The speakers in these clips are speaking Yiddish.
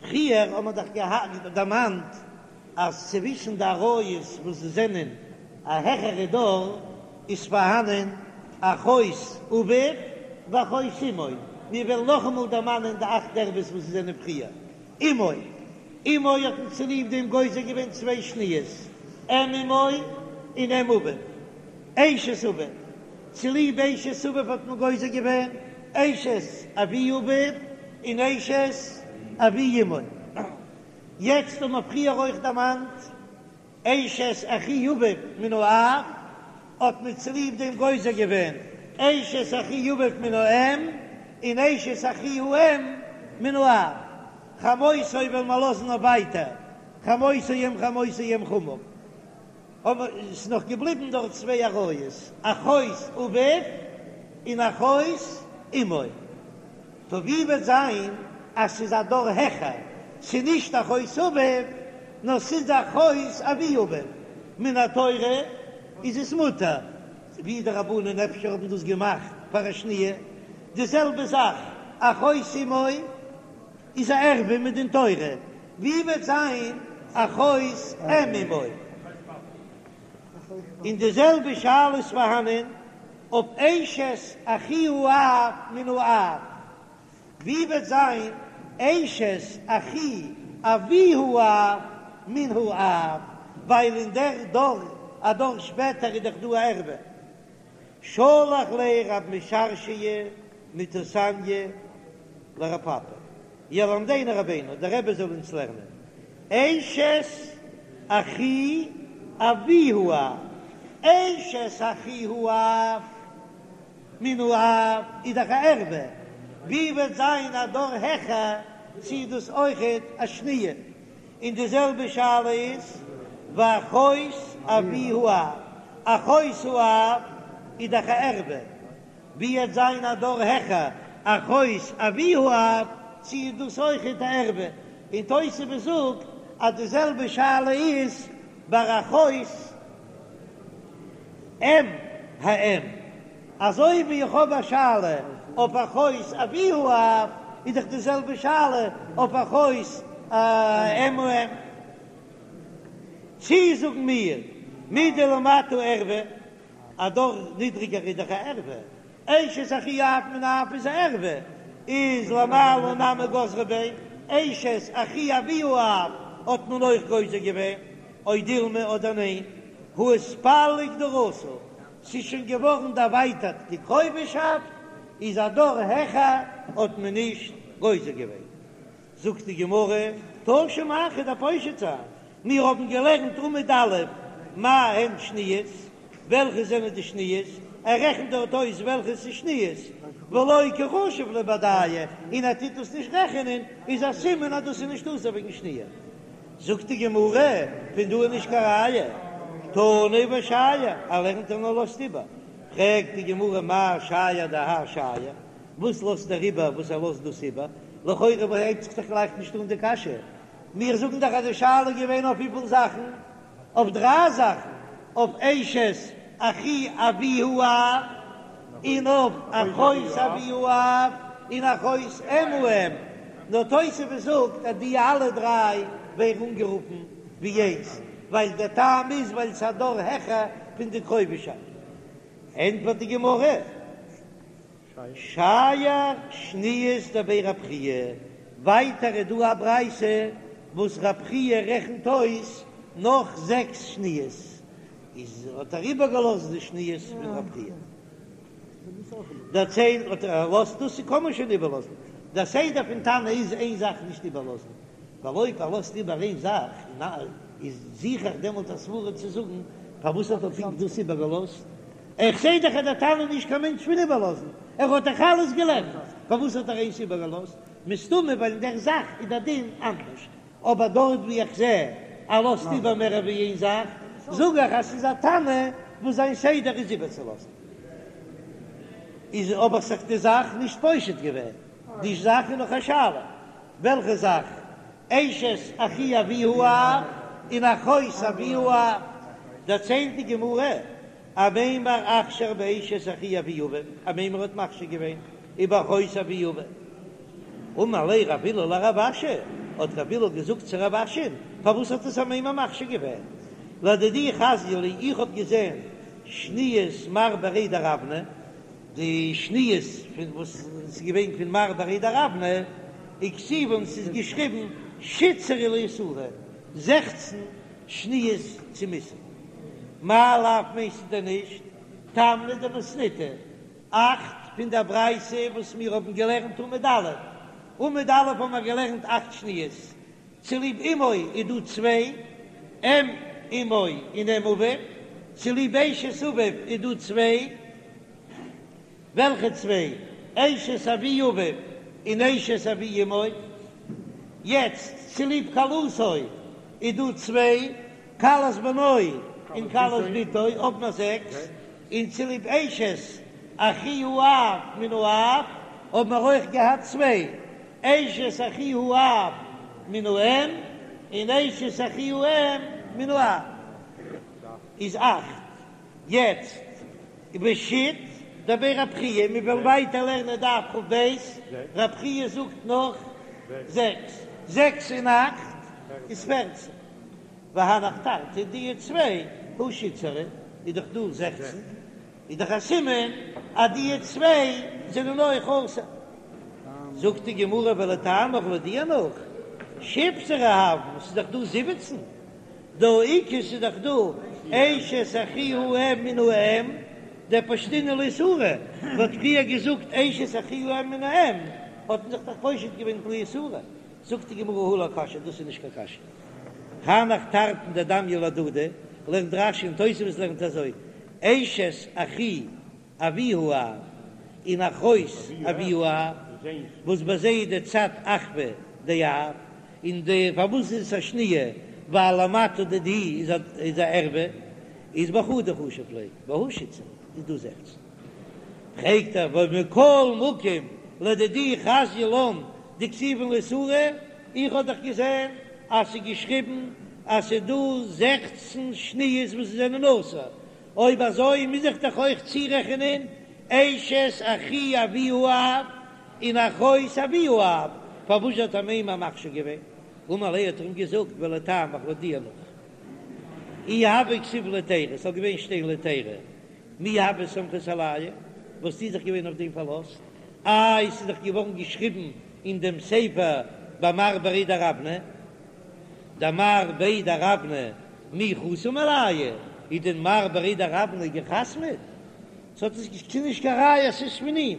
פריער האט מען דאך געהאט דערמאנט אז צווישן די עריות וואס זענען א העכערע דור איז פארהאנען אחות אביו ואחות אמו, מיר וועלן נאכאמאל דערמאנען די אכט ערוות וואס זענען פריער אמו, אמו האט מען צוליב דעם גוזר געווען צוויי שניות, אם אמו און אם אביו, אשת אביו, צוליב אשת אביו האט מען גוזר געווען אשת אבי אביו און אשת אבי אמו. יעצט האט מען פריער אויך דערמאנט אשת אחי אביו מן האב, האט מען צוליב דעם גוזר געווען אשת אחי אביו מן האם און אשת אחי האם מן האב. חמותו וועלן מיר לאזן אויף ווייטער, חמותו אם חמותו אם חמיו. אבער עס איז נאך געבליבן דארט צוויי עריות, אחות אביו און אחות אמו. טא ווי וועט זיין אז ס'איז א דור העכער, ס'איז נישט אחות אביו, נאר ס'איז אחות אבי אביו, מן התורה איז עס מותר, ווי די רבנן אפשר האבן דאס געמאכט פאר א שניה, די זעלבע זאך אחות אמו איז א ערווה מדין תורה, ווי וועט זיין אחות אם אמו? און די זעלבע שאלה איז פארהאנען אויף אשת אחי האב מן האב, ווי וועט זיין אשת אחי אבי האב מן האב, ווייל אין דער דור א דור שפעטער איז דאך דא א ערווה. שלח ליה רב משרשיא מטוסניא לרב פפא, ילמדנו רבינו, דער רבי זאל אונז לערנען, אשת אחי אבי האב, אשת אחי האב מן האב איז דאך א ערווה, ווי וועט זיין א דור העכער צי איז דאס אויכעט א שניה, און די זעלבע שאלה איז ואחות אבי האב, אחות האב איז דאך א ערווה, ווי וועט זיין א דור העכער אחות אבי האב, צי איז דאס אויכעט א ערווה, און תוספות זאגט אז די זעלבע שאלה איז ביי אחות אם האם, אזוי ווי איך האב א שאלה אויף אחות אבי האב, איז דאך די זעלבע שאלה אויף אחות אם האם. צי זאגן מיר מדלמטה ערווה, א דור נידריגער איז דאך א ערווה, אשת אחי אב מן האב איז א ערווה, איז למעלה נמי גזרו ביה, אשת אחי אבי האב האט מען אויך גוזר געווען, או דילמא אדער ניין, הא איתפליג דרתא, ס'איז שוין געווארן דערווייטערט די קרובהשאפט, איז א דור העכער האט מען נישט גוזר געווען. זאגט די גמרא, תא שמע כ'וועל דיר פושט זיין, מיר האבן געלערנט עמוד א', מה הן שניות, וועלכע זענען די שניות, ער רעכנט דארט אויס וועלכע ס'איז שניות, ולא קא חשיב להו בהדייהו, און ער טוט דאס נישט רעכענען, איז א סימן אז דאס איז נישט אסור וועגן שניה. זאגט די גמרא, פון דא איז נישט קיין ראיה, תנא ושייר, ער לערנט און ער לאזט איבער, פרעגט די גמרא מאי שייר דהאי שייר, וואס לאזט ער איבער וואס ער לאזט דאס איבער? לכאורה הייבט זיך דאך גלייך נישט אן די קשיא, מיר זאגן דאך אז די שאלה איז געווען אויף וויפיל זאכן? אויף דריי זאכן, אויף אשת אחי אבי האב, און אויף אחות אבי האב, און אחות אם האם, נאר תוספות זאגט אז די אלע דריי ווערן אנגערופן ווי איינס, ווייל דער טעם איז ווייל ס'איז א דור העכער פון די קרובהשאפט. ענטפערט די גמרא, שייר שניות דבי רב חייא, ווייטער איז דא א ברייתא וואס רב חייא רעכנט אויס נאך זעקס שניות, איז האט ער איבערגעלאזט די שניות פון רב חייא. דערציילט האט ער לאזט דאס קען מען שוין איבערלאזן, דער סדר פון תנא איז איין זאך נישט איבערלאזן, ווייל אויב ער לאזט איבער איין זאך איז זוך איך דעמאלט א סברא צו זאגן פארוואס האט ער פונקט דאס איבערגעלאזט, איך זעה דאך אז דער תנא איז נישט קיין מענטש פון איבערלאזן, ער האט דאך אלעס געלערנט, פארוואס האט ער איינס איבערגעלאזט? מסתמא ווייל אין דער זאך איז דער דין אנדערש, אבער דארט ווי איך זעה ער לאזט איבער מער ווי איין זאך, זאג איך אז ס'איז א תנא וואס זיין סדר איז איבערצולאזן. איז אבער זיך די זאך נישט פושט געווען, די זאך איז נאך א שאלה, וועלכע זאך? אשת אחי אבי האב און אחות אבי האב, דערציילט די גמרא, אמימר אכשר באשת אחי אבי אביו, אמימר האט מכשיר געווען ובאחות אבי אביו. אמר ליה רב הלל לרב אשי. האט רב הלל געזאגט צו רב אשי'ן, פארוואס האט עס אמימר מכשיר געווען? לדידי חזיא לי, איך האב געזען שניות מר בריה דרבנא, די שניות פון וואס איז געווען פון מר בריה דרבנא, וכתיבן ס'איז געשריבן שיתסרי לאיסורא, 16 שניות צום איסור. מאי לאו מיינסטו דען נישט תמני דמתניתא, אכט פון דער ברייתא וואס מיר האבן געלערנט עמוד א', עמוד א' האבן מיר געלערנט אכט שניות, צוליב אמו איז דא צוויי, אם אמו און אם אביו, צוליב אשת אביו איז דא צוויי, וועלכע צוויי? אשת אבי אביו און אשת אבי אמו. יעצט צוליב כלתו איז דא צוויי, כלת בנו און כלת בתו, האבן מיר זעקס, און צוליב אשת אחי האב מן האב האבן מיר אויך געהאט צוויי, אשת אחי האב מן האם און אשת אחי האם מן האב איז אכט. יעצט ושית דבי רב חייא, מיר וועלן ווייטער לערנען דף כ"ב, רב חייא זאגט נאך זעקס, זעקס און אכט איז פערצן, והנך תרתי די צוויי הא שיתסרי איז דאך דא 16, איז דאך א סימן אז די צוויי זענען אויך אסור. זאגט די גמרא ולטעמיך לויט דיר נאך, שיבסרי הויין, ס'איז דאך דא 17, דהא איכא ס'איז דאך דא אשת אחי האם מן האם, דפשטינהו לאיסורא, מ'האט פריער געזאגט אשת אחי האם מן האם, האט מען זיך דאך פושט געווען לאיסורא, זאגט די גמרא הא לא קשיא, דאס איז נישט קיין קשיא. הנך תרתין דדמיין להדדי, לערנט רש"י און תוספות לערנט אזוי, אשת אחי אבי האב און אחות אבי האב, וואס ביי זיי איז די צד אחוה דאב, און די פארוואס איז עס א שניה, ווייל למטה דידהו איז א איז א ערווה, איז בחדא חשיב ליה, והא שיתסרי איז דא זעכצן. פרעגט ער ומכל מקום לדידי חזיא לן דכתיבן לאיסורא, איך האב דאך געזען אז ס'איז געשריבן אז ס'איז דא זעכצן שניות וואס זענען אסור, אויב אזוי מוז איך דאך אויך צורעכענען אשת אחי אבי האב און אחות אבי האב, פארוואס האט אמימר מכשיר געווען? אמר ליה האט ער אים געזאגט ולטעמיך לויט דיר נאך אי הוה כתיב להיתירא, ס'זאל געווען שטיין להיתירא, מי הוה סמכת עלייהו, וואלסטו זיך געווען אויף דעם פארלאזט? איי ס'איז דאך געווארן געשריבן אין דעם ספר ביי מר בריה דרבנא, דמר בריה דרבנא מי חתים עלייהו, איז דען מר בריה דרבנא געחתמעט? ס'האט עס ס'איז נישט קיין ראיה אז ס'איז פון אים,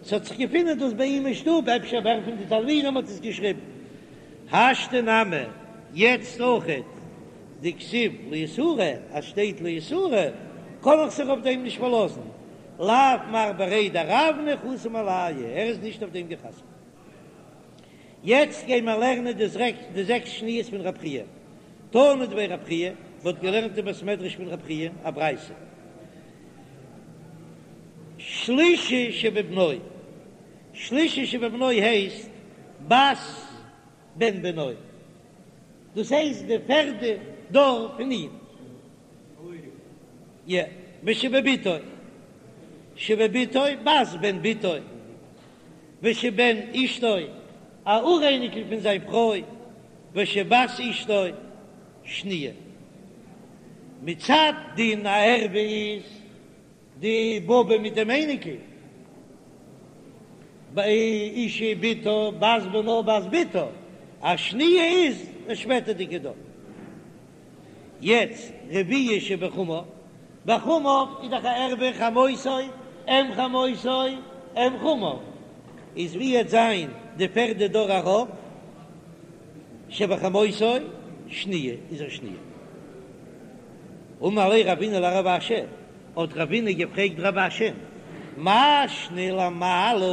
ס'האט זיך געפונען דאס ביי אים אין שטוב, אפשר ווער פון די תלמידים האט עס געשריבן. השתא נמי, יעצט אויכעט דכתיב לאיסורא, אז שטייט לאיסורא קען איך זיך אויף דעם נישט פארלאזן, לאו מר בריה דרבנא חתים עלייהו, ער איז נישט אויף דעם געחתמעט. יעצט גיי מיר לערנען די זעקס שניות פון רב חייא. תנא דבי רב חייא, מ'האט געלערנט אין בית מדרש פון רב חייא א ברייתא, שלישי שבבנו, שלישי שבבנו הייסט בת בן בנו, דאס הייסט די פערדע דור פון אים, יא, ושבבתו, שבבתו בת בן בתו. ושבן אשתו, א אוראייניקל פון זיין פרוי, ושבת אשתו, שניה. מצד דין א ערווה איז די באבע מיט דעם אייניקל, ביי אשה בתה בת בנה בת בתה, א שניה איז די שפעטערדיגע דור. יעצט רביעי שבחמיו, בחמיו איז דאך א ערווה חמותו, אם חמותו, אם חמיו, איז ווי עט זיין די פערדע דור ארויף, שבחמותו שניה איז א שניה. אמר ליה רבינא לרב אשי, האט רבינא געפרעגט רב אשי, מאי שנא למעלה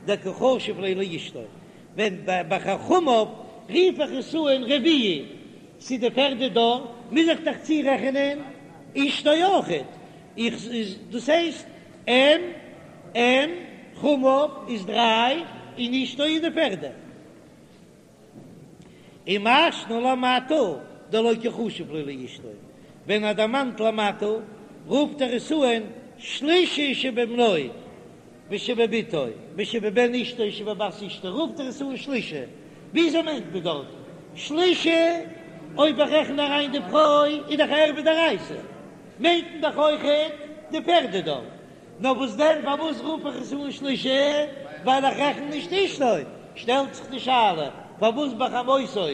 דקא חשיב ליה לאשתו, ווען ביי חמיו רוף איך עס אן רביעי צו די פערדע דור, מוז איך דאך צורעכענען אשתו אויכעט, איך דאס הייסט אם אם חמיו איז דריי און אשתו איז די פערדע. ומאי שנא למטה דלא קא חשיב ליה לאשתו, ווען ער דערמאנט למטה רופט ער עס אן שלישי שבבנו ושבבתו ושבבן אשתו ושבבת אשתו רופט ער עס אן שלישי. וויאזוי מיינט מען דארט שלישי? אויב איך רעכן אריין די פרוי איז דאך ערוה דאורייתא, מיינט מען דאך אויכעט די פערדע דור. נאר וואס דען פארוואס רוף איך עס אן שלישי? ווייל איך רעכן נישט אשתו. שטעלט זיך די שאלה פארוואס ביי חמותו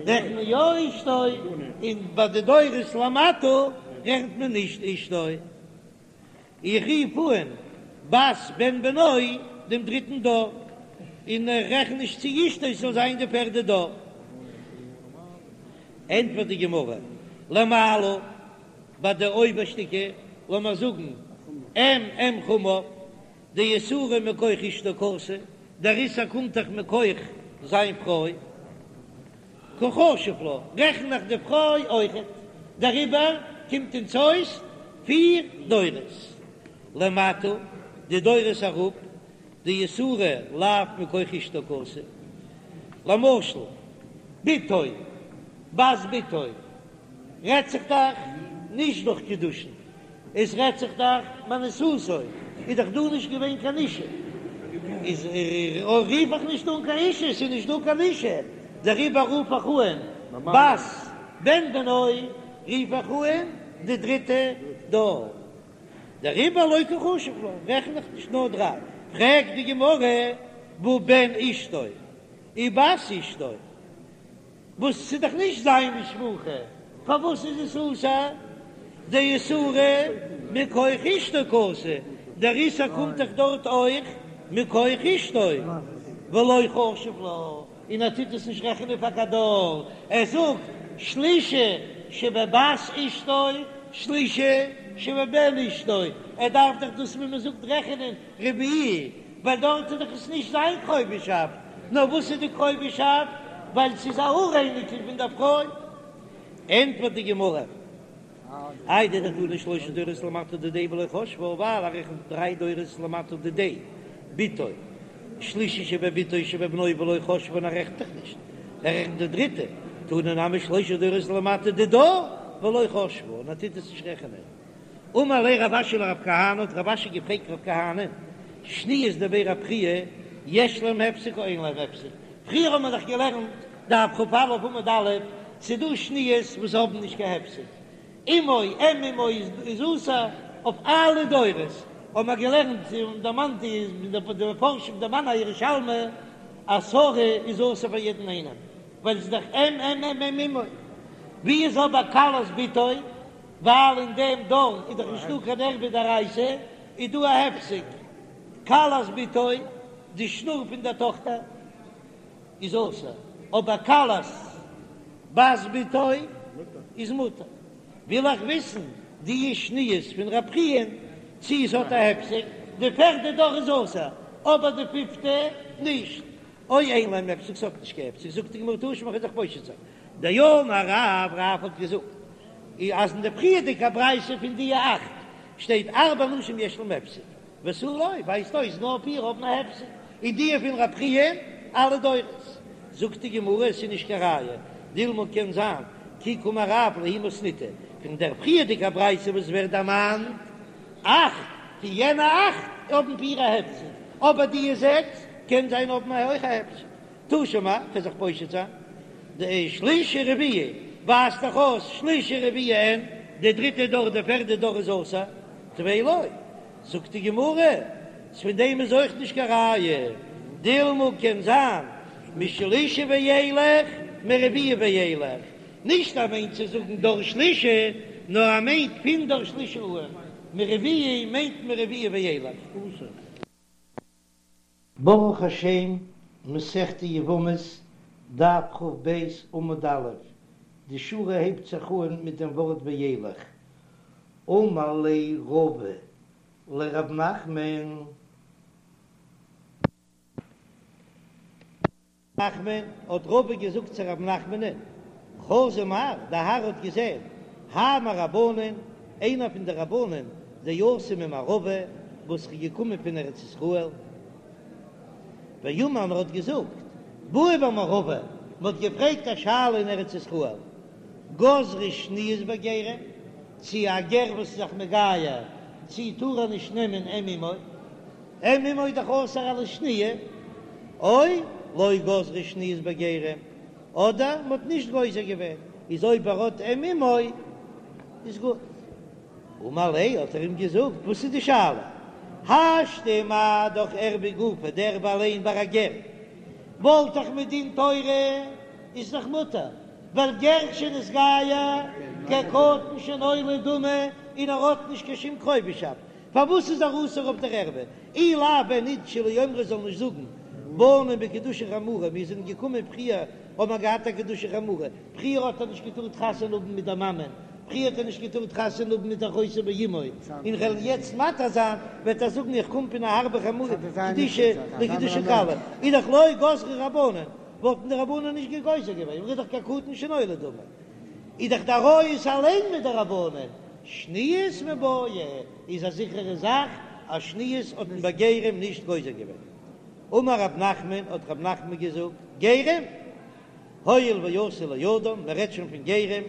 רעכנט מען יא אשתו און ביי די דורות למטה רעכנט מען נישט אשתו. איך רוף אן בת בן בנו דעם דריטן דור, און איך רעכן נישט צו אשתו ס'זאל זיין די פערדע דור. ענטפערט די גמרא, למעלה, ביי די אויבערשטיגע, לאמיר זאגן אם אם חמיו, דאיסורא מכח אשתו קאתי, דער איסור קומט דאך מכח זיין פרוי. קא חשיב לה, רעכן איך די פרוי אויכעט, דעריבער קומט אונז אויס פיר דורות למטה, די דורות אראפ, דאיסורא לאו מכח אשתו קאתי, למשל בתו בת בתו רעדט זיך דאך נישט דורך קידושין, עס רעדט זיך דאך מאנוסתו, איז דאך דא נישט געווען קיין אישה, איז רוף איך נישט אן קיין אישה, עס איז נישט דא קיין אישה, דעריבער רוף איך אן בת בן בנו, רוף איך אן די דריטע דור, דעריבער לא קא חשיב לה, רעכן איך נישט נאר דריי, פרעגט די גמרא, והא בן אשתו ובת אשתו. וואס ס'איז דאך נישט זיין משפחה, פארוואס איז עס אסור? דאיסורא מכח אשתו קאתי, דער איסור קומט דאך דארט אויך מכח אשתו, ולא חשיב לה, און ער טוט עס נישט רעכענען פאר קיין דור, ער זאגט שלישי שבבת אשתו, שלישי שבבן אשתו, ער דארף דאך דאס ווי מ'זאגט רעכענען רביעי, ווייל דארט איז דאך עס נישט זיין קרובהשאפט, נאר וואס איז די קרובהשאפט? ווייל ס'איז א אוראייניקל פון דער פרוי. ענטפערט די גמרא, איידי דתני שלשה דורות למטה דידיה ולא חשבה, ווייל ער רעכנט דריי דורות למטה דידיה, בתו, שלישי שבבתו שבבנו ולא חשבה און ער רעכנט דאך נישט, ער רעכנט די דריטע, תני נמי שלשה דורות למטה דידה ולא חשבה און ער טוט עס נישט רעכענען. אמר ליה רב אשי לרב כהנא, האט רב אשי געפרעגט רב כהנא, שניות דבי רב חייא, יש להם הפסק או אין להם הפסק? פריער האבן מיר דאך געלערנט דף כ"א עמוד א', ס'דא שניות וואס האבן נישט קיין הפסק, אמו אם אמו איז אסור אויף אלע דורות, האבן מיר געלערנט און דערמאנט די מפרשים דערמאנען א ירושלמי אז שרה איז אסור פאר יעדן איינעם, ווייל ס'איז דאך אם אם אם אם אמו, ווי איז אבער כלת בתו? ווייל אין דעם דור איז דאך נישטא קיין ערוה דאורייתא, איז דא א הפסק, כלת בתו, די שנור פון דער טאכטער איז אסור, אבער כלת בת בתו איז מותר. וויל איך וויסן די שניות פון רב חייא צי עס האט א הפסק, די פערדע דור איז אסור, אבער די פיפטע נישט, או אין להם הפסק, ס'האט נישט קיין הפסק, זאגט די גמרא תא שמע, כ'וועל זיך פושט זיין. דאמר רב, רב האט געזאגט אז אין די פריערדיגע ברייתא פון די אכט שטייט ארבע נשים יש להם הפסק ותו לא, ווייזט אויס נאר פיר האבן א הפסק, און די פון רב חייא אלע דורות. זאגט די גמרא עס איז נישט קיין ראיה, דילמא קען זיין כי קאמר רב להיא מתניתא, פון דער פריערדיגע ברייתא וואס ווערט דערמאנט אכט, פון יענע אכט האבן פיר א הפסק, אבער די זעקס קען זיין האבן אויך א הפסק. תא שמע, כ'וועל זיך פושט זיין, דשלישי רביעי ווייזט דאך אויס שלישי רביעי אין, די דריטע דור די פערדע דור איז אסור, טפי לא, זאגט די גמרא, אז פון דעם איז אויך נישט קיין ראיה, דילמא קען זיין משלישי ואילך מרביעי ואילך, נישט ער מיינט צו זאגן דור שלישי, נאר ער מיינט פון דור שלישי אן, מרביעי מיינט מרביעי ואילך. ברוך השם, מסכת יבמות, דף כ"ב עמוד א', די שורה הייבט זיך אן מיט דעם ווארט וילך. אמר ליה רבא לרב נחמן. נחמן, האט רבא געזאגט צו רב נחמנ'ן, חזא מר, דער האר האט געזען, האי מרבנן, איינער פון די רבנן, דאתא ממערבא, וואס איז געקומען פון ארץ ישראל, ואמר און ער האט געזאגט, בעו במערבא, מען האט געפרעגט א שאלה אין ארץ ישראל, גזרו שניות בגרים, צי א גר וואס איז זיך מגייר, צי טאר ער נישט נעמען אם אמו? אם אמו איז דאך אסור אלס שניה, או. לא גזרו שניות בגרים, אדער מ'האט נישט גוזר געווען, איז אויב ער האט אם אמו איז גוט. אמר ליה האט ער אים געזאגט, וואס איז די שאלה? השתא מה דאך ערוה גופה, די ערוה אליין ביי א גר, וואלט דאך מדין תורה איז דאך מותר, ווייל גר שנתגייר כקטן שנולד דמי און ער האט נישט קיין שום קרובהשאפט, פארוואס איז ער אסור אויף דער ערוה? אי לאו ווען ניט שלא יאמרו זאל נישט זאגן באנו בקדושה חמורה, מיר זענען געקומען פריער האבן מיר געהאט א קדושה חמורה, פריער האט ער נישט געטארט חתונה האבן מיט דער מאמען, פריער האט ער נישט געטארט חתונה האבן מיט אחותו באמו, און כ'וועל יעצט מתיר זיין, וועט ער זאגן איך קום פון א הארבע חמורה קדושה לקדושה קלה, איז דאך לא גזרו רבנן, וואלטן די רבנן נישט גוזר געווען, איז דאך כקטן שנולד דמי, איז דאך די עריות אליין מדרבנן, שניות מיבעיא, איז א זיכערע זאך אז שניות האט מען ביי גרים נישט גוזר געווען. אמר רב נחמן, האט רב נחמן געזאגט, גרים, הואיל ואתו לאדם, מען רעדט שוין פון גרים,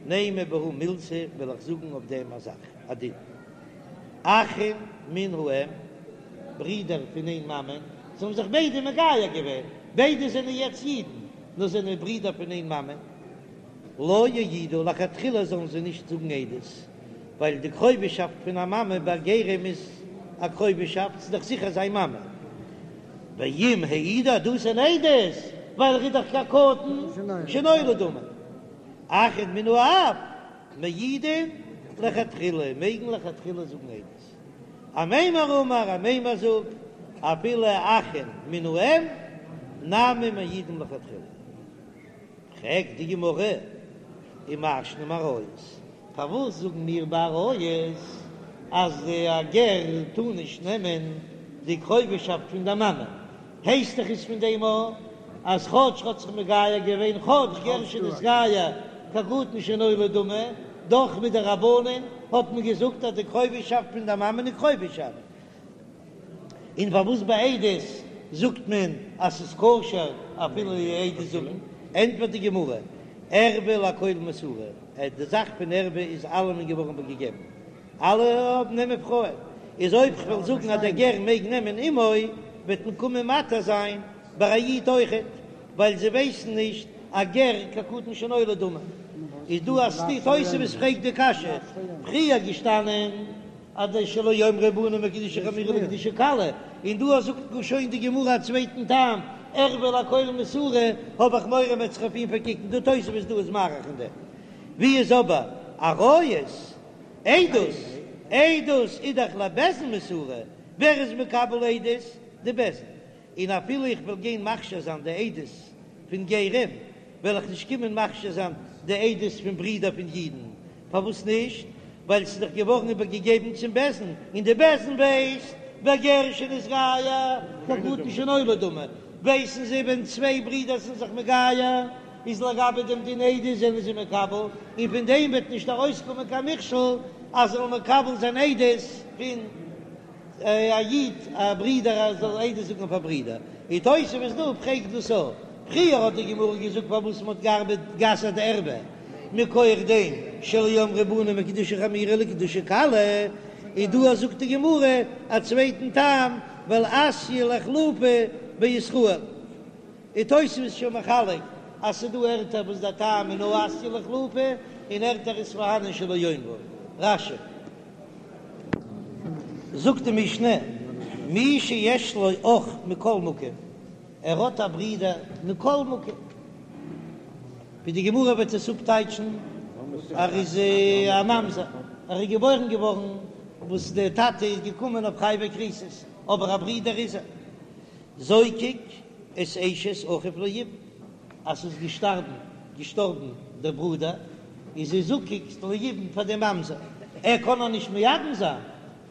נימא בהו מילתא, וועל איך זאגן אויף דעם א זאך, א דין. אחין מן האם, ברידער פון איין מאמען, זיי האבן זיך ביידע מגייר געווען, ביידע זענען יעצט אידן, נאר זענען ברידער פון איין מאמען. לא יעידו, לכתחילה זאלן זיי נישט זאגן עדות, ווייל די קרובהשאפט פון א מאמע ביי גרים איז א קרובהשאפט, ס'איז דאך זיכער זיין מאמע. ואם העידו עדותן עדות, ווייל ער איז דאך כקטן שנולד דמי. אחין מן האב מעידין לכתחילה, מעגן לכתחילה זאגן עדות. אמימר אמר, אמימר זאגט, אפילו אחין מן האם נמי מעידין לכתחילה. פרעגט די גמרא, ומאי שנא מעריות, פארוואס זאגן מיר ביי עריות אז א גר טאר נישט נעמען די קרובהשאפט פון די מאמע? הייסט דאך עס פון דעם א אז כאטש האט זיך מגייר געווען כאטש גר שנתגייר כקטן שנולד דמי, דאך מדרבנן האט מען געזאגט אז די קרובהשאפט פון די מאמען איז קרובהשאפט. און פארוואס ביי עדות זאגט מען אז ס'איז כשר אפילו עדות זאגן? ענטפערט די גמרא, ערוה לכל מסורה, די זאך פון ערוה איז אלעמען געווארן איבערגעגעבן, אלע האבן נעמען פרויען, איז אויב כ'וועל זאגן אז דער גר מעג נעמען אמו, וועט מען קומען מתיר זיין ביי א איד אויכעט, ווייל זיי ווייסן נישט א גר כקטן שנולד דמי. איז דא א סתירה, תוספות פרעגט די קשיא, פריער געשטאנען אז די שלא יאמרו באנו מקדושה חמורה לקדושה קלה, און דא זאגט גאר שוין די גמרא א צווייטן טעם, ערוה לכל מסורה, האב איך מורא מ'וועט זיך אויף אים פארקוקן, דא תוספות דא איז מאריך אין דעם. ווי איז אבער עריות? עדות? עדות איז דאך לבית דין מסורה, ווער איז מקבל עדות? די בית דין, און אפילו איך וועל גיין מכשיר זיין די עדות פון גרים, וועל איך נישט קומען מכשיר זיין די עדות פון ברידער פון אידן, פארוואס נישט? ווייל ס'איז דאך געווארן איבערגעגעבן צום בית דין, און די בית דין ווייסט בגר שנתגייר כקטן שנולד דמי, ווייסן זיי ווען צוויי ברידער זענען זיך מגייר, איז לגבי דעם דין עדות זענען זיי מקבל, און פון דעם וועט נישט ארויסקומען קיין מכשול אז זאל מקבל זיין עדות פון א איד א ברודער אז זאל עדות זאגן אויף א ברודער, און תוספות דא פרעגט דאס אויך, פריער האט די גמרא געזאגט פארוואס מען האט געארבעט גע'אסר'ט די ערוה מכח דעם שלא יאמרו באנו מקדושה חמורה לקדושה קלה, און דא זאגט די גמרא א צווייטן טעם ווייל אתיא לאיחלופי בישראל, און תוספות איז שוין מחלק אז ס'דא ערטער וואס די טעם איז נאר אתיא לאיחלופי און ערטער איז פארהאנען שלא יאמרו. רש"י. זאגט די משנה, מי שיש לו אח מכל מקום, ער האט א ברודער מכל מקום, ווי די גמרא וועט עס אפטייטשן, ער איז א ממזר, ער איז געבוירן געווארן וואס דער טאטע איז געקומען אויף חייבי כריתות, אבער א ברודער איז ער. זוקק את אשת אחיו ליבום, אז ס'איז געשטארבן געשטארבן דער ברודער, איז זי זקוק ליבום פאר דעם ממזר, ער קען איר נישט מייבם זיין,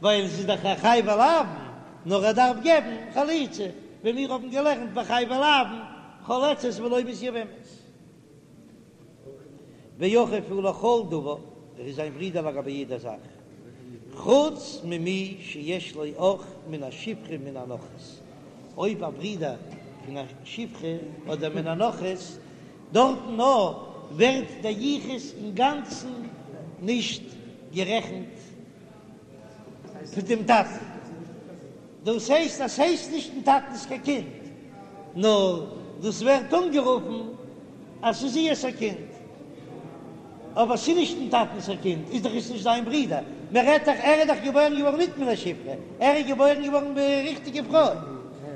ווייל זי איז דאך א חייבי לאוין, נאר ער דארף געבן חליצה, ווי מיר האבן געלערנט ביי חייבי לאוין, חולצת ולא מתייבמת. ואחיו הוא לכל דבר, ער איז זיין ברודער לגבי יעדע זאך, חוץ ממי שיש לו אח מן השפחה מן הנכרית, אויב א ברודער פון א שפחה אדער מן הנכרית, דארטן נאר ווערט דער יחוס אינגאנצן נישט גערעכנט פון דעם טאטן, דאס הייסט אז ס'הייסט נישט דעם טאטנ'ס קיין קינד, נאר. דאס ווערט אנגערופן אז ס'איז איהר'ס א קינד, אבער ס'איז נישט דעם טאטנ'ס א קינד, איז דאך עס נישט זיין ברודער, מען רעדט דאך ער איז דאך געבוירן געווארן ניט מן השפחה, ער איז געבוירן געווארן ביי ריכטיגע פרוי,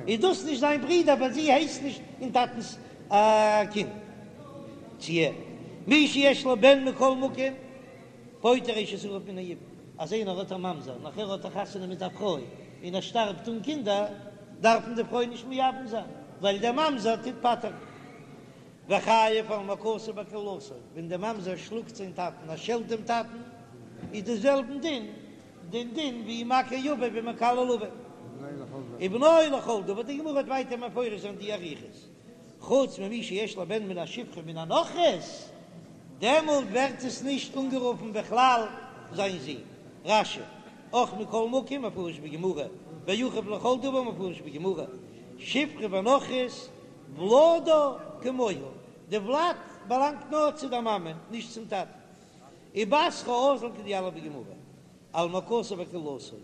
איז דאס נישט זיין ברודער ווייל זי הייסט נישט אין טאטנ'ס א קינד. צו ער, מי שיש לו בן מכל מקום, פוטר אשת אחיו מן היבום, אז איינער האט א ממזר נאכער האט ער חתונה מיט א פרוי און ער שטארבט אן קינדער, דארף מען די פרוי נישט מייבם זיין, ווייל דער ממזר טוט פטר'ן. וחייב על מכתו וקללתו, ווען דער ממזר שלאגט זיין טאטן, ער שעלט דעם טאטן, איז די זעלבן דין, דעם דין ווי מכה אביו ומקלל אביו. ובנו לכל דבר, די גמרא וועט ווייטער מפרש זיין די אריכות. חוץ ממי שיש לו בן מן השפחה מן הנכרית, דעמאלט ווערט עס נישט אנגערופן בכלל זיין זון. רש"י, אח מכל מקום מפרש בגמרא, ואחיו לכל דבר מפרש בגמרא, שפחה ונכרית ולדה כמוה, די ולד באלאנגט נאר צו דער מאמע, נישט צום טאטן. ובתרא אזיל כדיליף בגמרא, על מכתו וקללתו,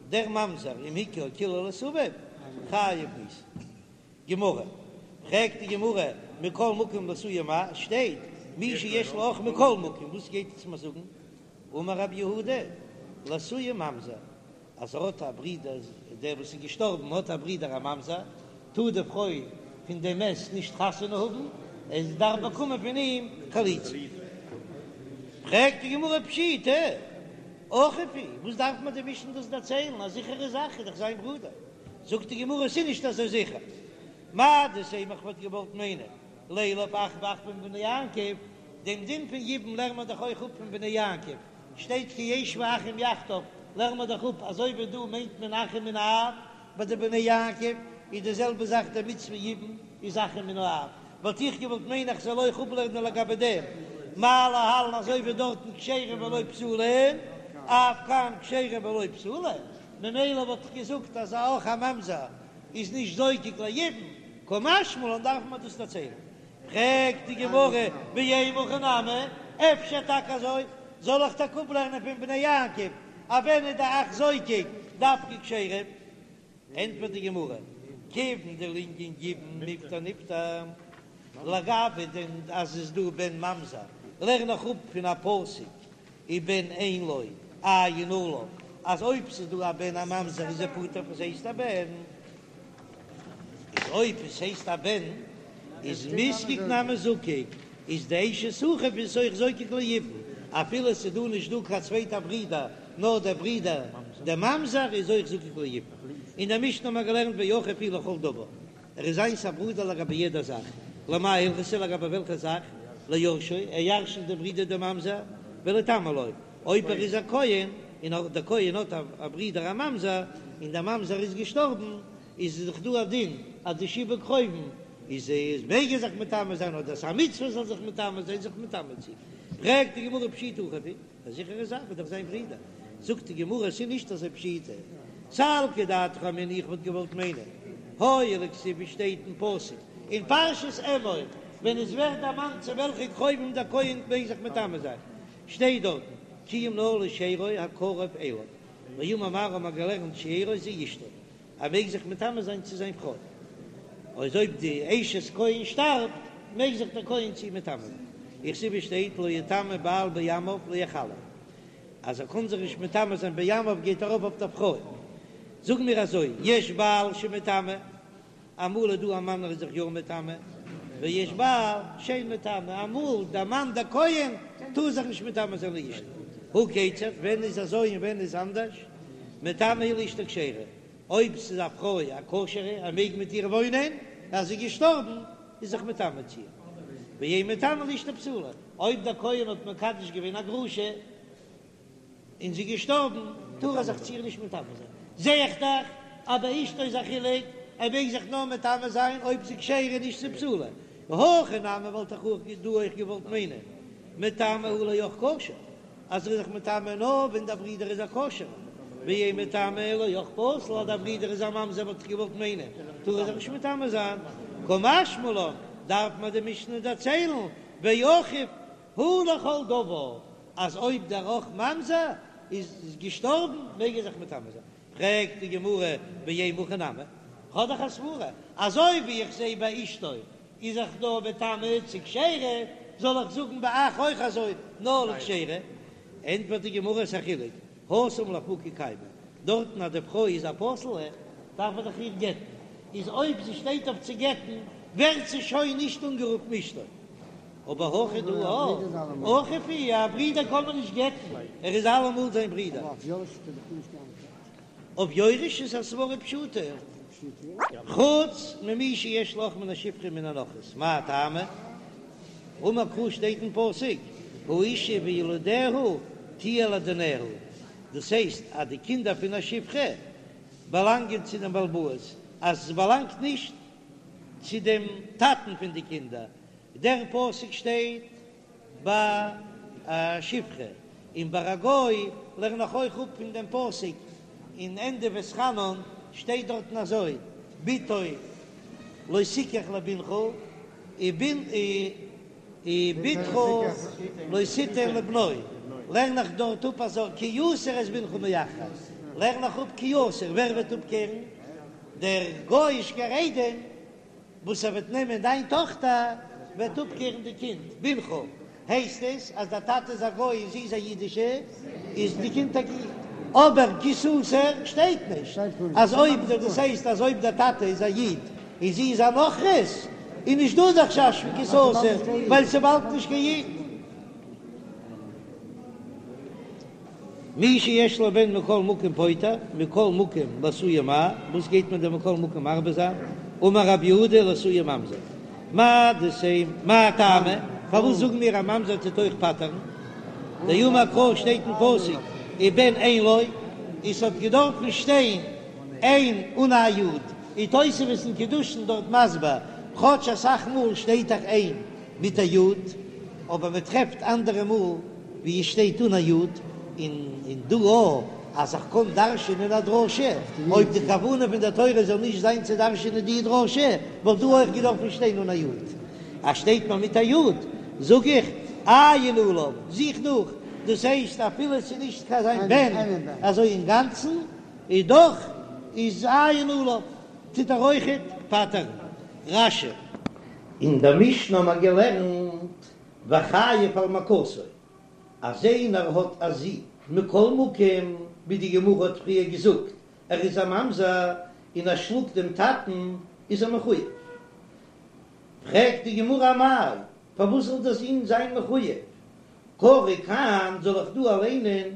דער ממזר אם הכה או קילל את אביו, חייב מיתה. גמרא, פרעגט די גמרא, מכל מקום לאתויי מאי, עס שטייט מי שיש לו אח מכל מקום, וואס גייט עס מיר זאגן? אמר רב יהודה, לאתויי ממזר, אז ער האט א ברודער, דער וואס איז געשטארבן האט א ברודער א ממזר, טאר די פרוי פון דעם מת נישט חתונה האבן, עס דארף באקומען פון אים חליצה. פרעגט די גמרא פשיטא, אחיו הוא, וואס דארף מיר די משנה דאס דערציילן, א זיכערע זאך איז דאך זיין ברודער. זאגט די גמרא ס'איז נישט אזוי זיכער, מהו דתימא איך וואלט געוואלט מיינען לילף אחוי ואחוה מבני יעקב, דעם דין פון יבום לערן מיר דאך אויך אפ פון בני יעקב, שטייט כי ישבו אחים יחדיו, לערן מיר דאך אפ אזוי ווי דא מיינט מען אחים מן האב, ביי די בני יעקב איז די זעלבע זאך די מצוה יבום איז אחים מן האב, וואלט איך געוואלט מיינען איך זאל אויך אפלערנען לגבי דעם מה להלן אזוי ווי דארטן כשרים ולא פסולים, אף כאן כשרים ולא פסולים. ממילא וואלט איך געזאגט אז א אח א ממזר איז נישט זוקק ליבום, קא משמע לן דארף מען דאס דערציילן. פרעגט די גמרא ואימא הכי נמי, אפשר טאקע אזוי, זאל איך טאקע אפלערנען פון בני יעקב אז ווען איז די אח זוקק דווקא כשרים? ענטפערט די גמרא, כיוון דלענין יבום מיפטר נפטר, לגבי דעם אז עס איז דא בן ממזר לערן איך אפ פון א פסוק ובן אין לו עיין עליו, אז אויב ס'איז דא א בן א ממזר איז ער פטור פון ס'הייסט א בן, איז אויב עס הייסט א בן איז מיזקק נמי זקיק, איז די אשת אחיו איז אויך זוקק ליבום, אפילו ס'איז דא נישט דא קיין צווייטע ברודער נאר דער ברודער דער ממזר איז אויך זקוק ליבום. אין דער משנה האט מען געלערנט ואחיו הוא לכל דבר. ער איז זיינס א ברודער לגבי יעדע זאך, למאי הלכתא לגבי וועלכע זאך, ליורשו, ער ירש'נט דעם ברודער דעם ממזר, וליטמא לו, אויב ער איז א כהן, און דער כהן האט א ברודער א ממזר, און דער ממזר איז געשטארבן, איז דאך דא א דין אז די שבעה קרובים איז איז מעג ער זיך מטמא זיין אדער ס'איז א מצוה זאל זיך מטמא זיין זיך מטמא צו, פרעגט די גמרא פשיטא אחיו הוא. א זיכערע זאך איז דאך זיין ברודער. זאגט די גמרא ס'איז נישט אזוי פשיטא. סלקא דעתך אמינא איך וואלט געוואלט מיינען הואיל וכתיב ווי שטייט אין פסוק אין פרשת אמור ווען עס ווערט דערמאנט צו וועלכע קרובים דער כהן מעג זיך מטמא זיין שטייט דארטן כי אם נאר לשארו הקרוב אליו ואמר מר האט מען געלערנט שארו זו אשתו ער מעג זיך מטמא זיין צו זיין פרוי, אויב אויב די אשת כהן שטארבט, מעג זיך דער כהן צו איר מטמא זיין. וכתיב שטייט לא יטמא בעל בעמיו להחלו, אז ער קען זיך נישט מטמא זיין בעמיו גייט ארויף אויף דער פרוי. זאג מיר אזוי, יש בעל שמטמא, אמאל איז דא א מאן ער איז זיך יא מטמא, ויש בעל שאין מטמא, אמאל דער מאן דער כהן טאר זיך נישט מטמא זיין לאשתו. הא כיצד, ווען איז אזוי און ווען איז אנדערש? מטמא הוא לאשתו כשרה, אויב ס'איז א פרוי א כשר'ע, ער מעג מיט איר וואוינען, אז זי איז געשטארבן, איז זיך מטמא צו איר. ואין מטמא לאשתו פסולה, אויב דער כהן האט מקדש געווען א גרושה און זי איז געשטארבן, טאר ער זיך צו איר נישט מטמא זיין. זע איך דאך אז ביי אשתו איז א חילוק, ער מעג זיך נאר מטמא זיין אויב ס'איז כשרה נישט ס'איז פסולה. הכא נמי וואלט איך אויך דא אויך געוואלט מיינען מטמא הוא לאח כשר. אז ער איז זיך מטמא נאר ווען דער ברודער איז א כשר'ער, ואין מטמא לאח פסול אז דער ברודער איז א ממזר וואלט איך געוואלט מיינען טאר ער זיך נישט מטמא זיין, קא משמע לן דארף מיר די משנה דערציילן ואחיו הוא לכל דבר אז אויב דער אח ממזר איז געשטארבן מעג ער זיך מטמא זיין, פרעגט די גמרא ואימא הכי נמי, כ'האב דאך א סברא אזוי ווי איך זע ביי אשתו. איז דאך נאר מטמא צו כשרה, זאל איך זאגן ביי אח אויך אזוי נאר לכשרה? ענטפערט די גמרא ס'א חילוק, התם לאפוקי קיימא, דארטן אז די פרוי איז א פסול'ע דארף מען דאך איר גט'ן, איז אויב זי שטייט אויף צו גט'ן ווערט זי שוין נישט אנגערופן אשתו. אבער הכא דא אחיו הוא, א ברודער קען מען נישט גט'ן, ער איז אלעמאל זיין ברודער. אויף יורש איז א סברא פשוטה, חוץ ממי שיש לו אח מן השפחה ומן הנכרית, מאי טעמא? אמר קרא שטייט אין פסוק האשה וילדיה תהיה לאדוניה, דאס הייסט אז די קינדער פון א שפחה באלאנגען צו דעם בעל הבית, אז עס באלאנגט נישט צו דעם טאטן פון די קינדער, דער פסוק שטייט ביי א שפחה, און ביי א גוי לערן איך אויך אפ פון דעם פסוק אין ענדע ואתחנן שטייט דארטן אזוי, בתו לא תקח לבנך ובתך לא תתן לבנו, לערן איך דארט אפ אזוי, כי יסיר את בנך מאחרי, לערן איך אפ כי יסיר, ווער וועט אפקערן? דער גוי'אישקער איידעם וואס ער וועט נעמען דיין טאכטער וועט אפקערן די קינד, בנך, הייסט עס אז דער טאטע איז א גוי און זי איז א אידישע, איז די קינד א איד, אבער כי תסיר שטייט נישט אז אויב דאס הייסט אז אויב דער טאטע איז א איד און זי איז א נכרית איז נישט דא די חשש פון כי תסיר ווייל ס'באלד נישט קיין איד. מי שיש לו בן מכל מקום פוטר, מכל מקום לאתויי מאי, וואס גייט מען דען מכל מקום מרבה זיין? אמר רב יהודה לאתויי ממזר, מהו דתימא, מאי טעמא, פארוואס זאגן מיר א ממזר טוט אויך פטר'ן? דאמר קרא שטייט אין פסוק ובן אין לו, עס האט געדארפן שטיין אין אן א יוד, און תוספות אין קידושין דארט מסביר, כאטש אסאך מאל שטייט דאך אין מיט א יוד, אבער מען טרעפט אנדערע מאל ווי עס שטייט אן א יוד, און און דא אויך אז איך קען דרש'ענען א דרשה, אויב די כוונה פון דער תורה זאל נישט זיין צו דרש'ענען די דרשה, וואלט דא אויך געדארפן שטיין אן א יוד. אז שטייט מיר מיט א יוד, זאג איך, עיין עליו, זוך נאך, דאס הייסט אפילו עס איז נישט קיין זיין בן אזוי אינגאנצן, איז דאך איז עיין עליו, טוט ער אויכעט פטר'ן. רש"י. אין דער משנה האבן מיר געלערנט וחייב על מכתו, אז איינער האט א זון מכל מקום, ווי די גמרא האט פריער געזאגט, ער איז א ממזר און ער שלאגט דעם טאטן, איז ער מחויב. פרעגט די גמרא אמאי, פארוואס זאל דער זון זיין מחויב? קרא כאן, זאל איך דא ליינען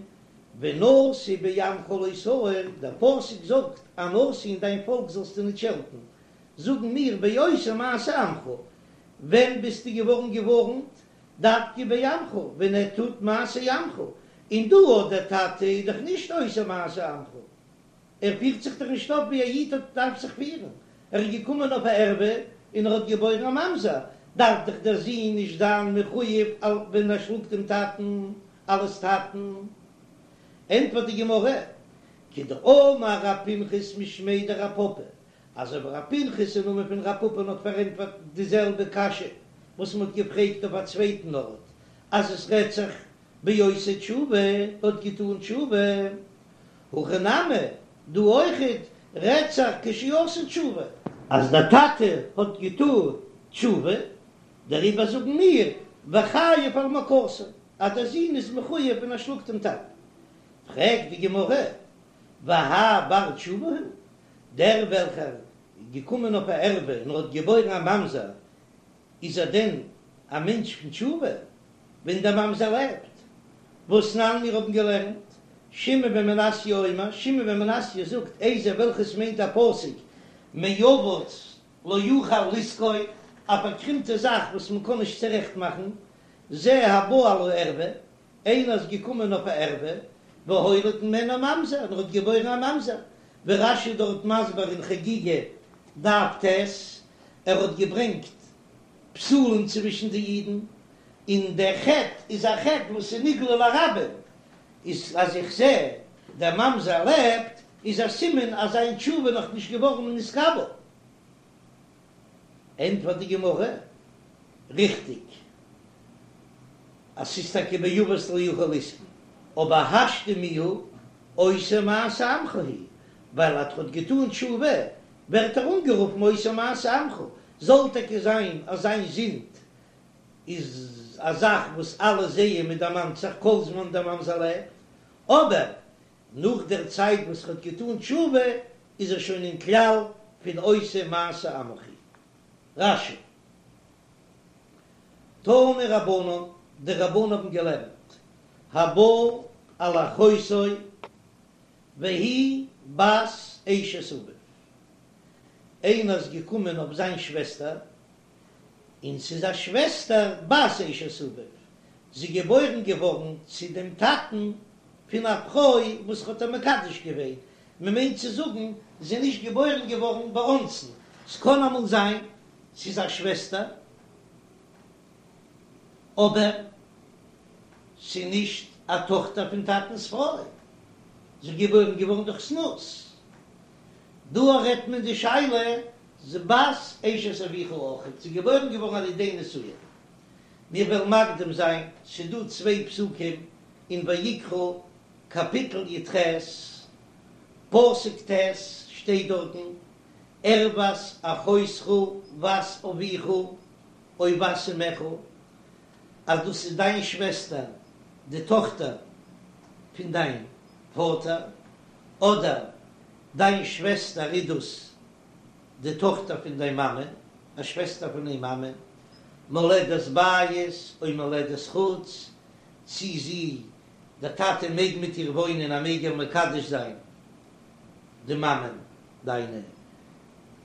ונשיא בעמך לא תאור, דער פסוק זאגט א נשיא אין דיין פאלק זאלסטו ניט שעלטן, זאגן מיר בעושה מעשה עמך, ווען ביסטו געווארן געווארנט? דווקא בעמך, ווען ער טוט מעשה עמך, און דא אט דער טאטע איז דאך נישט עושה מעשה עמך, ער פירט זיך דאך נישט אויף ווי א איד האט דארף זיך פירן, ער איז געקומען אויף א ערווה און ער האט געבוירן א ממזר, דארף דאך דער זון נישט זיין מחויב ווען ער שלאגט דעם טאטן אלס טאטן. ענטפערט די גמרא, כדאמר רב פנחס משמיה דרב פפא, אזוי ווי רב פנחס אין נאמען פון רב פפא'ן האט פארענטפערט די זעלבע קשיא וואס מען האט געפרעגט אויף א צווייטן ארט, אז עס רעדט זיך בעושה תשובה האט געטאן תשובה, הכא נמי דא אויכעט רעדט זיך כשעשה תשובה. אז דער טאטע האט געטאן תשובה, דעריבער זאגן מיר וחייב על מכתו אז דער זון איז מחויב ווען ער שלאגט דעם טאטן. פרעגט די גמרא, והאי בר תשובה הוא, דער וועלכער איז געקומען אויף א ערווה און האט געבוירן א ממזר, איז ער דען א מענטש פון תשובה ווען דער ממזר לעבט? והתנן מיר האבן געלערנט, שמעון בן מנסיא אומר, שמעון בן מנסיא זאגט, איזהו וועלכעס מיינט א פסוק מעוות לא יוכל לתקון, א פארקרימטע זאך וואס מען קען נישט צורעכט מאכן, זה הבא על הערווה, איינער איז געקומען אויף א ערווה, והוליד ממנה ממזר, און ער האט געבוירן א ממזר, ווי רש"י דארט מסביר אין חגיגה דף ט', ער האט געברענגט פסולים צווישן די אידן, און דער חטא איז א חטא וואס איז נגלה לרבים, איז אז איך זע דער ממזר לעבט, איז א סימן אז זיין תשובה נאך נישט געווארן נתקבל. ענטפערט די גמרא, ריכטיג אז ס'איז טאקע מעוות לא יוכל לתקון, אבער השתא מיהא עושה מעשה עמך הוא, ווייל אז ער האט געטאן תשובה ווערט ער אנגערופן עושה מעשה עמך. זאל טאקע זיין אז זיין זינד איז א זאך וואס אלע זעען מען דערמאנט זיך כל זמן דער ממזר לעבט, אבער נאך דער צייט וואס ער האט געטאן תשובה איז ער שוין אין כלל פון עושה מעשה עמך. רש"י. תנו רבנן, די רבנן האבן געלערנט, הבא על אחותו והיא בת אשת אביו, איינער איז געקומען אויף זיין שוועסטער, און ס'איז א שוועסטער בת אשת אביו, זי איז געבוירן געווארן צו דעם טאטן פון א פרוי וואס האט איר מקדש געווען, מ'מיינט צו זאגן זי איז נישט געבוירן געווארן באונסין, ס'קען אמאל זיין ס'איז א שוועסטער אבער ס'איז נישט א טאכטער פון טאטנ'ס פרוי, זי איז געבוירן געווארן דורך זנות. דא רעדט מען די שאלה זי בת אשת אביך אויכעט, זי איז געבוירן געווארן על ידי נישואין. מיר וועלן מקדים זיין, ס'איז דא צוויי פסוקים אין ויקרא קאפיטל י"ח פסוק ט' שטייט דארטן ערות אחותך בת אביך או בת אמך, אז דאס איז דיין שוועסטער די טאכטער פון דיין פאטער, אדער דיין שוועסטער איז דאס די טאכטער פון דיין מאמע, א שוועסטער פון דיין מאמע, מולדת בית או מולדת חוץ, צי זי, דער טאטע מעג מיט איר וואוינען, ער מעג איר מקדש זיין די מאמע דיינע,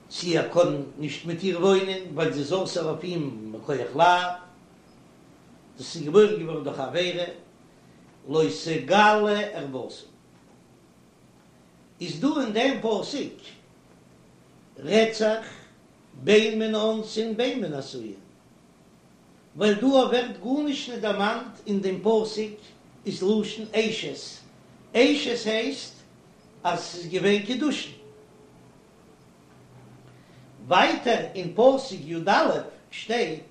צי ער קען נישט מיט איר וואוינען ווייל זי איז אסור אויף אים מכח לאו, דאס איז געבוירן געווארן דורך עבירה, לא תגלה ערותה. איז דא אין דעם פסוק רעדט זיך בין מן האונסין בין מן הנשואין, ווייל דא ווערט גארנישט נישט דערמאנט אין דעם פסוק איז לשון אשת, אשת הייסט אז ס'איז געווען קידושין. ווייטער אין פסוק י"א שטייט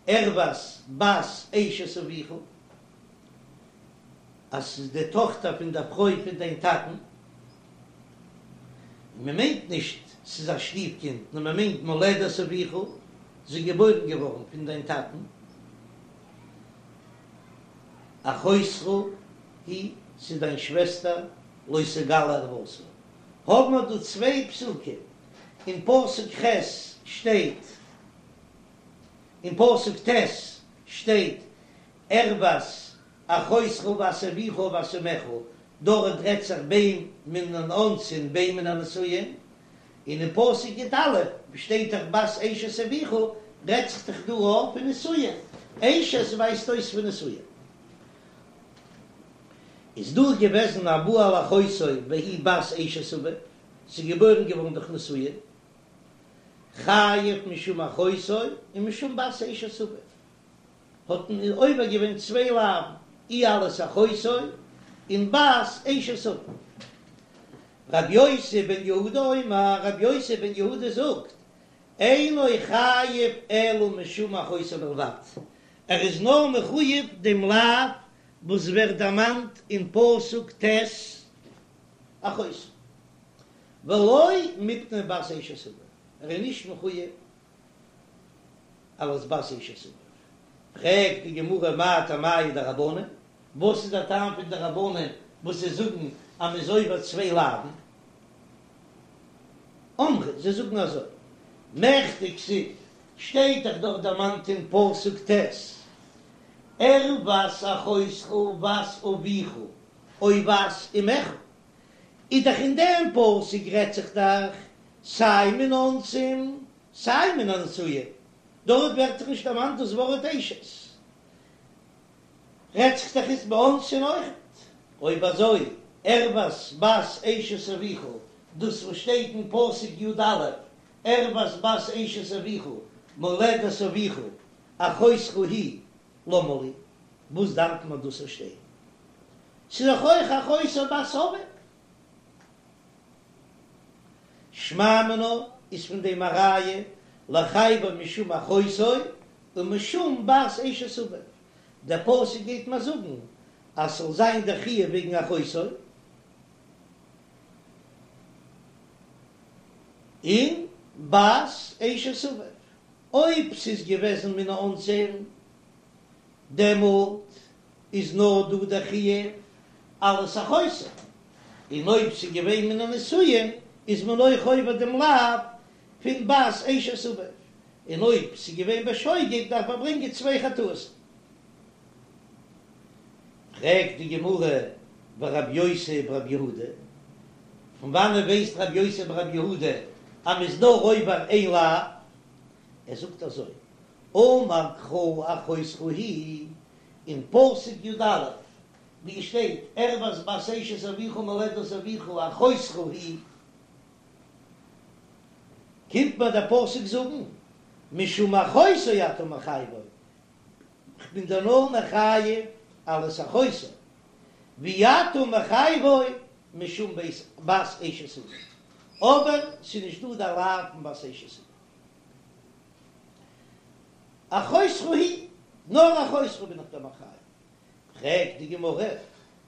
ערות בת אשת אביך, אז ס'איז די טאכטער פון דער פרוי פון דיין טאטן, און מען מיינט נישט ס'איז א שטיף קינד, נאר מען מיינט מולדת אביך, זי איז געבוירן געווארן פון דיין טאטן, אחותך היא, ס'איז דיין שוועסטער, לא תגלה ערותה. האבן מיר דא צוויי פסוקים, אין פסוק ח' שטייט, אין פסוק ט' שטייט ערות אחותך בת אביך או בת אמך, דארט רעדט זיך בין מן האונסין בין מן הנשואין, און אין פסוק י"א שטייט דאך בת אשת אביך, רעדט זיך דאך דא אויך פון נישואין, אשת ווייזט אויס פון נישואין. איז דא געוועזן הבא על אחותו והיא בת אשת אביו, ס'איז געבוירן געווארן דורך נישואין, חייב משום אחותו ומשום בת אשת אביו. האט מען עובר געווען צוויי לאווין, אי אלס אחותו און בת אשת אביו. רבי יוסי בן יהודה אומר, רבי יוסי בן יהודה זאגט, אינו חייב אלא משום אחותו בלבד, ער איז נאר מחויב דעם לאו וואס ווערט דערמאנט אין פסוק ט' אחותו, ולא מפני בת אשת אביו, ער איז נישט מחויב אלס בת אשת אביו. פרעגט די גמרא מאי טעמייהו דרבנן, וואס איז דער טעם פון די רבנן וואס זיי זאגן אז מ'איז עובר צוויי לאווין? אמרי, זיי זאגן אזוי, מכדי כתיב, שטייט דאך דארט דערמאנט אין פסוק ט', ערות אחותך בת אביך או בת אמך, איז דאך אין דעם פסוק רעדט זיך דאך סיי מן האונסין סיי מן הנשואין, דארט ווערט דאך נישט דערמאנט דאס ווארט אשת, רעדט זיך דאך איצט באונסין אויכעט. אויב אזוי, ערות בת אשת אביך, דאס וואס שטייט אין פסוק י"א, ערות בת אשת אביך, מולדת אביך, אחותך היא, למה לי, וואס דארף מען דאס זאל שטיין? ס'איז דאך אויך אחותו בת אביו. שמע מינה איז פון דעם א ראיה לחייבו משום אחותו ומשום בת אשת אביו, דער פסוק גייט מיר זאגן אז ס'זאל זיין דער חיוב וועגן אחותו און. בת אשת אביו, אויב ס'איז געוועזן מן האונסין, דעמאלט איז נאר דא דער חיוב אלס אחותו, און אויב ס'איז געווען מן הנשואין איז מען אויך עובר דעם לאו פון בת אשת אביו, און אויב ס'איז געווען בשוגג דארף מען ברענגען צוויי חטאות. פרעגט די גמרא ורבי יוסי ברבי יהודה, פון וואנען ווייסט רבי יוסי ברבי יהודה אז מ'איז נאר עובר איין לאו? ער זאגט אזוי, אמר קרא אחותך היא, אין פסוק י א ווי עס שטייט ערות בת אשת אביך מולדת אביך אחותך היא, קומט מיר דער פסוק זאגן משום אחותו אתה מחייבו, כ'בין דיר נאר מחייב אלס אחותו, ואי אתה מחייבו משום בת אשת אביו, אבער ס'איז נישט דא דער לאו פון בת אשת אביו. אחותך היא, נאר אחותך בין איך דיר מחייב. פרעגט די גמרא,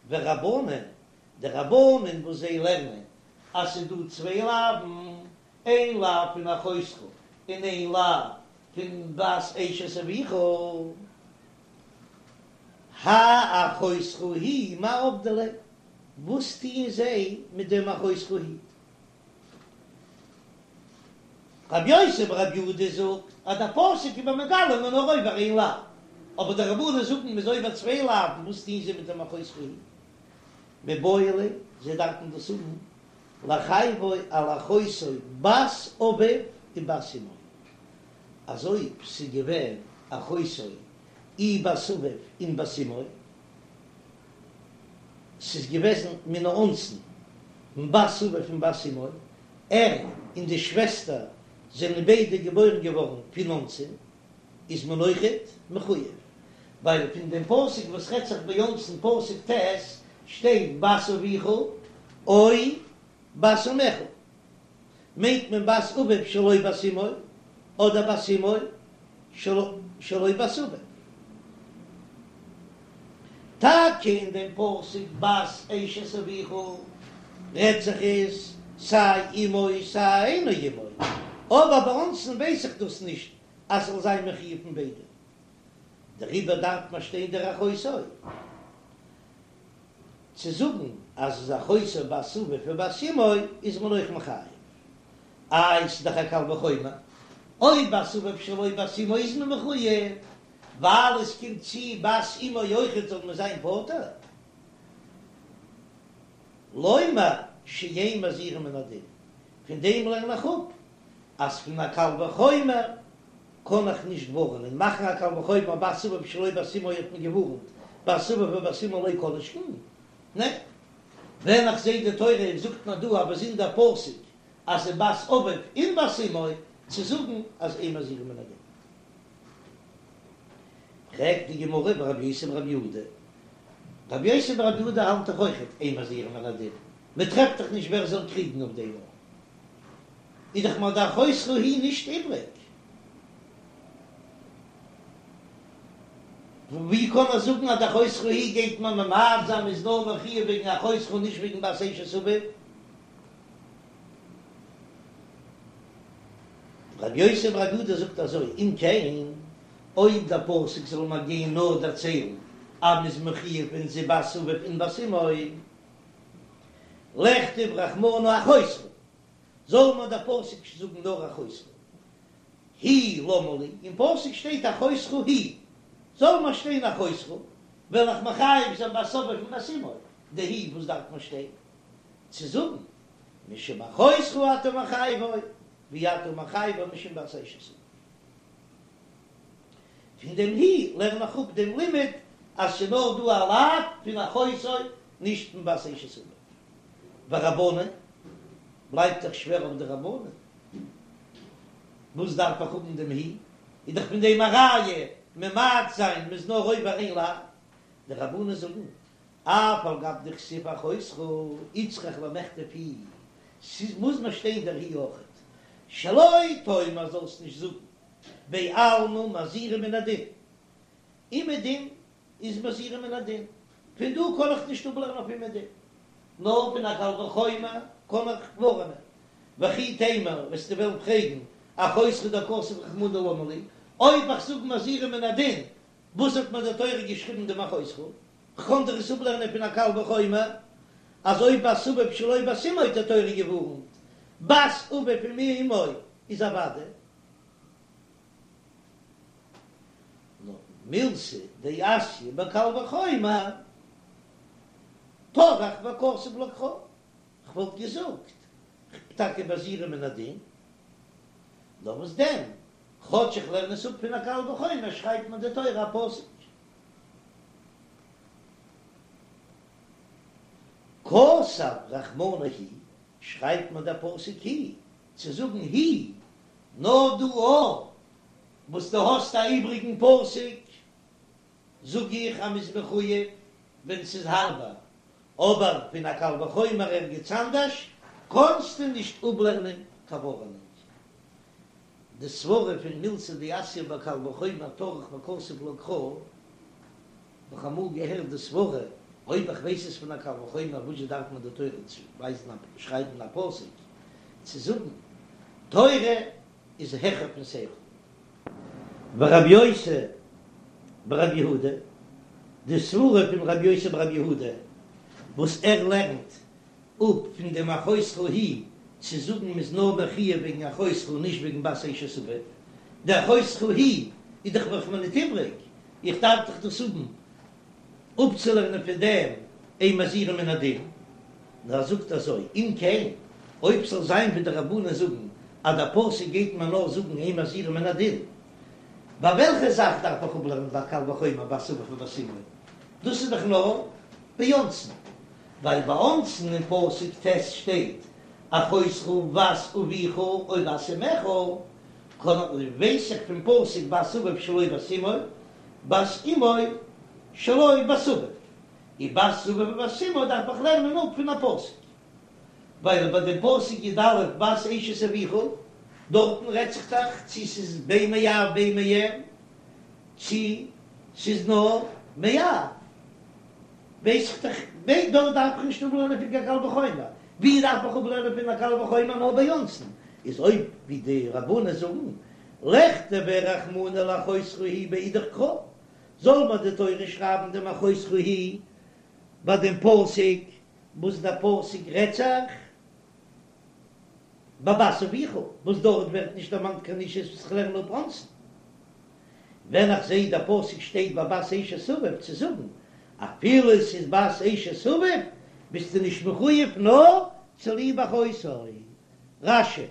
ורבנן, די רבנן וואס זיי לערנען אז ס'איז דא צוויי לאוו'ן, איין לאו פון אחותך און איין לאו פון בת אשת אביך, האי אחותך היא מאי עבדי ליה, וואס טוען זיי מיט דעם אחותך היא? רבי יוסי ברבי יהודה זאגט אז דער פסוק איז מיר מגלה מ'איז נאר עובר איין לאו, אבער די רבנן זאגן מ'איז עובר צוויי לאוו'ן, וואס טוהן זיי מיט דעם אחותך היא? מיבעי ליה, זיי דארפן דאס האבן לחייבו על אחותו בת אביו ובת אמו, אז אויב ס'איז געווען אחותו אי בת אביו און בת אמו, ס'איז געוועזן מן האונסין, בת אביו און בת אמו, ער און די שוועסטער זענען ביידע געבוירן געווארן פון אונסין, איז מען אויכעט מחויב, ווייל פון דעם פסוק וואס רעדט זיך ביי אונסין פסוק ט' שטייט בת אביך או בת אמך. מיינט מען בת אביו שלא בת אמו, אדער בת אמו שלא בת אביו. טאקע אין דעם פסוק בת אשת אביך רעדט זיך עס סיי אמו סיי אינו אמו, אבער ביי אונסין ווייס איך דאס נישט אז ס'זאל זיין מחויב פון ביידע, דעריבער דארף מען שטיין דער אחותו. צו זאגן אז איז אחותו בת אביו ובת אמו איז מען אויך מחייב. איי ס'איז דאך א קל וחומר, אויב בת אביו שלא בת אמו איז מען מחויב, ווייל עס קומט צו בת אמו אויכעט זאל מען זיין פטור. לומר שאין מזהירין מן הדין, פון דעם לערן איך אפ אז פון א קל וחומר קען איך נישט ווארענען, מאכן א קל וחומר בת אביו שלא בת אמו האט מען געווארענט, בת אביו ובת אמו לא כל שכן, ניין, ווען איך זעה די תורה זאגט מיר דא א באזונדער פסוק אז ס'איז בת אביו און בת אמו, צו זאגן אז אין מזהירין מן הדין. פרעגט די גמרא ורבי יוסי ברבי יהודה, רבי יוסי ברבי יהודה האלט דאך אויכעט אין מזהירין מן הדין, מען טרעפט דאך נישט ווער זאל קריגן אויף דעם. איז דאך מיר די אחותך היא נישט איבריג. ווי קען ער זאגן אז די אחותך היא גייט מען ממעט זיין מ'איז נאר מחויב וועגן אחותך נישט וועגן בת אשת אביו? רבי יוסי ברבי יהודה זאגט אזוי, אם כן, אויב דער פסוק זאל מיר גיין נאר דערציילן אז מ'איז מחויב ווען ס'איז בת אביו און בת אמו, לכתוב רחמנא אחותך, זאל מיר דער פסוק זאגן נאר אחותך היא למה לי, אין פסוק שטייט אחותך היא, זאל מיר שטיין אחותך, וועל איך מחייב זיין בת אביו און בת אמו, די היא וואס דארף מיר שטיין צו זאגן משום אחותך אתה מחייבו, ואי אתה מחייבו משום בת אשת אביו. פון דעם היא לערן איך אפ דעם לימוד אז ס'איז נאר דא א לאו פון אחותו נישט פון בת אשת אביו. ורבנן, בלייבט דאך שווער אויף די רבנן, וואס דארף איך האבן דעם היא? איז דאך פון דעם א ראיה ממעט זיין מ'איז נאר עובר איין לאו. די רבנן זאגן אף על גב דכתיב אחותך איצטריך למכתב היא, ס'מוז מיר שטיין דער היא אויכעט, שלא תאמר זאלסט נישט זאגן בעלמא מזהירין מן הדין, אומעדום איז מזהירין מן הדין, פון דא קען איך נישט אפלערנען אויף אומעדום, נאר פון א קל וחומר קען איך ווארענען. וכי תימא, וועסטו וועלן פרעגן, אחותך דכתב רחמנא למה לי, אויב איך זאג מזהירין מן הדין, וואס האט מיר די תורה געשריבן דעם אחותך? כ'קען דאך עס אפלערנען פון א קל וחומר, אז אויב בת אביו שלא בת אמו האט די תורה געווארנט, בת אביו עם אמו איז אוודאי. נאר מילתא דאתיא בקל וחומר, טרח וכתב לה קרא, כ'וואלט געזאגט, כ'בין טאקע מזהירין מן הדין, נאר וואס דען, כאטש איך לערן עס אפ פון א קל וחומר שרייבט מיר די תורה א פסוק. כתב רחמנא היא, שרייבט מיר דער פסוק היא, צו זאגן היא, נאר דא א וואס דו האסט א איבריגן פסוק, זאג איך אז מ'איז מחויב ווען ס'איז הארבער, אבער פון א קל וחומר ערגעץ אנדערש קענסטו נישט אפלערנען קיין ווארענונג. די סברה פון מילתא דאתיא בקל וחומר טרח וכתב לה קרא, האב איך אמאל געהערט די סברה, אויב איך ווייס עס פון א קל וחומר וואס זשע דארף מיר די תורה צו ווייזן א שרייבן א פסוק צו זאגן תורה איז העכער פון שכל. ורבי יוסי ברבי יהודה, די סברה פון רבי יוסי ברבי יהודה וואס ער לערנט אפ פון דעם אחותך היא צו זאגן מ'איז נאר מחויב וועגן אחותך נישט וועגן בת אשת אביו, די אחותך היא איז דאך דאך מיר ניט איבריג, איך דארף דאך דאס האבן אפצולערנען פון דעם אין מזהירין מן הדין, נאר ער זאגט אזוי, אם כן, אויב ס'זאל זיין ווי די רבנן זאגן אז דער פסוק גייט מיר נאר זאגן אין מזהירין מן הדין, ביי וועלכע זאך דארף איך אפלערנען ביי קל וחומר בת אביו ובת אמו? דאס איז דאך נאר ביי אונסין, ווייל ביי אונסין אין פסוק ט' שטייט אחותך בת אביך או בת אמך, קען ווייס איך פון פסוק בת אביו שלא בת אמו, בת אמו שלא בת אביו, און בת אביו ובת אמו דארף איך לערנען אפ פון א פסוק, ווייל ביי דעם פסוק י"א בת אשת אביך, דארטן רעדט זיך דאך צו ס'איז בין מאב בין מאם, צו ס'איז נאר מאב, ווייס איך דאך, דארט דארף איך נישט אפלערנען פון קיין קל וחומר, ווי דארף איך אפלערנען פון א קל וחומר נאר ביי אונסין, איז אויב ווי די רבנן זאגן, לכתביה רחמנא לאחותך היא באידך קרא, זאל מיר די תורה שרייבן דעם אחותך היא ביי דעם פסוק וואס דער פסוק רעדט זיך ביי בת אביך, וואס דארט ווערט נישט דערמאנט קיין אישות וואס איך לערן אפ אונסין. ווען איך זעה דער פסוק שטייט ביי בת אשת אביו צו זאגן אפילו עס איז בת אשת אביו ביסטו נישט מחויב נאר צוליב אחותו. רש"י.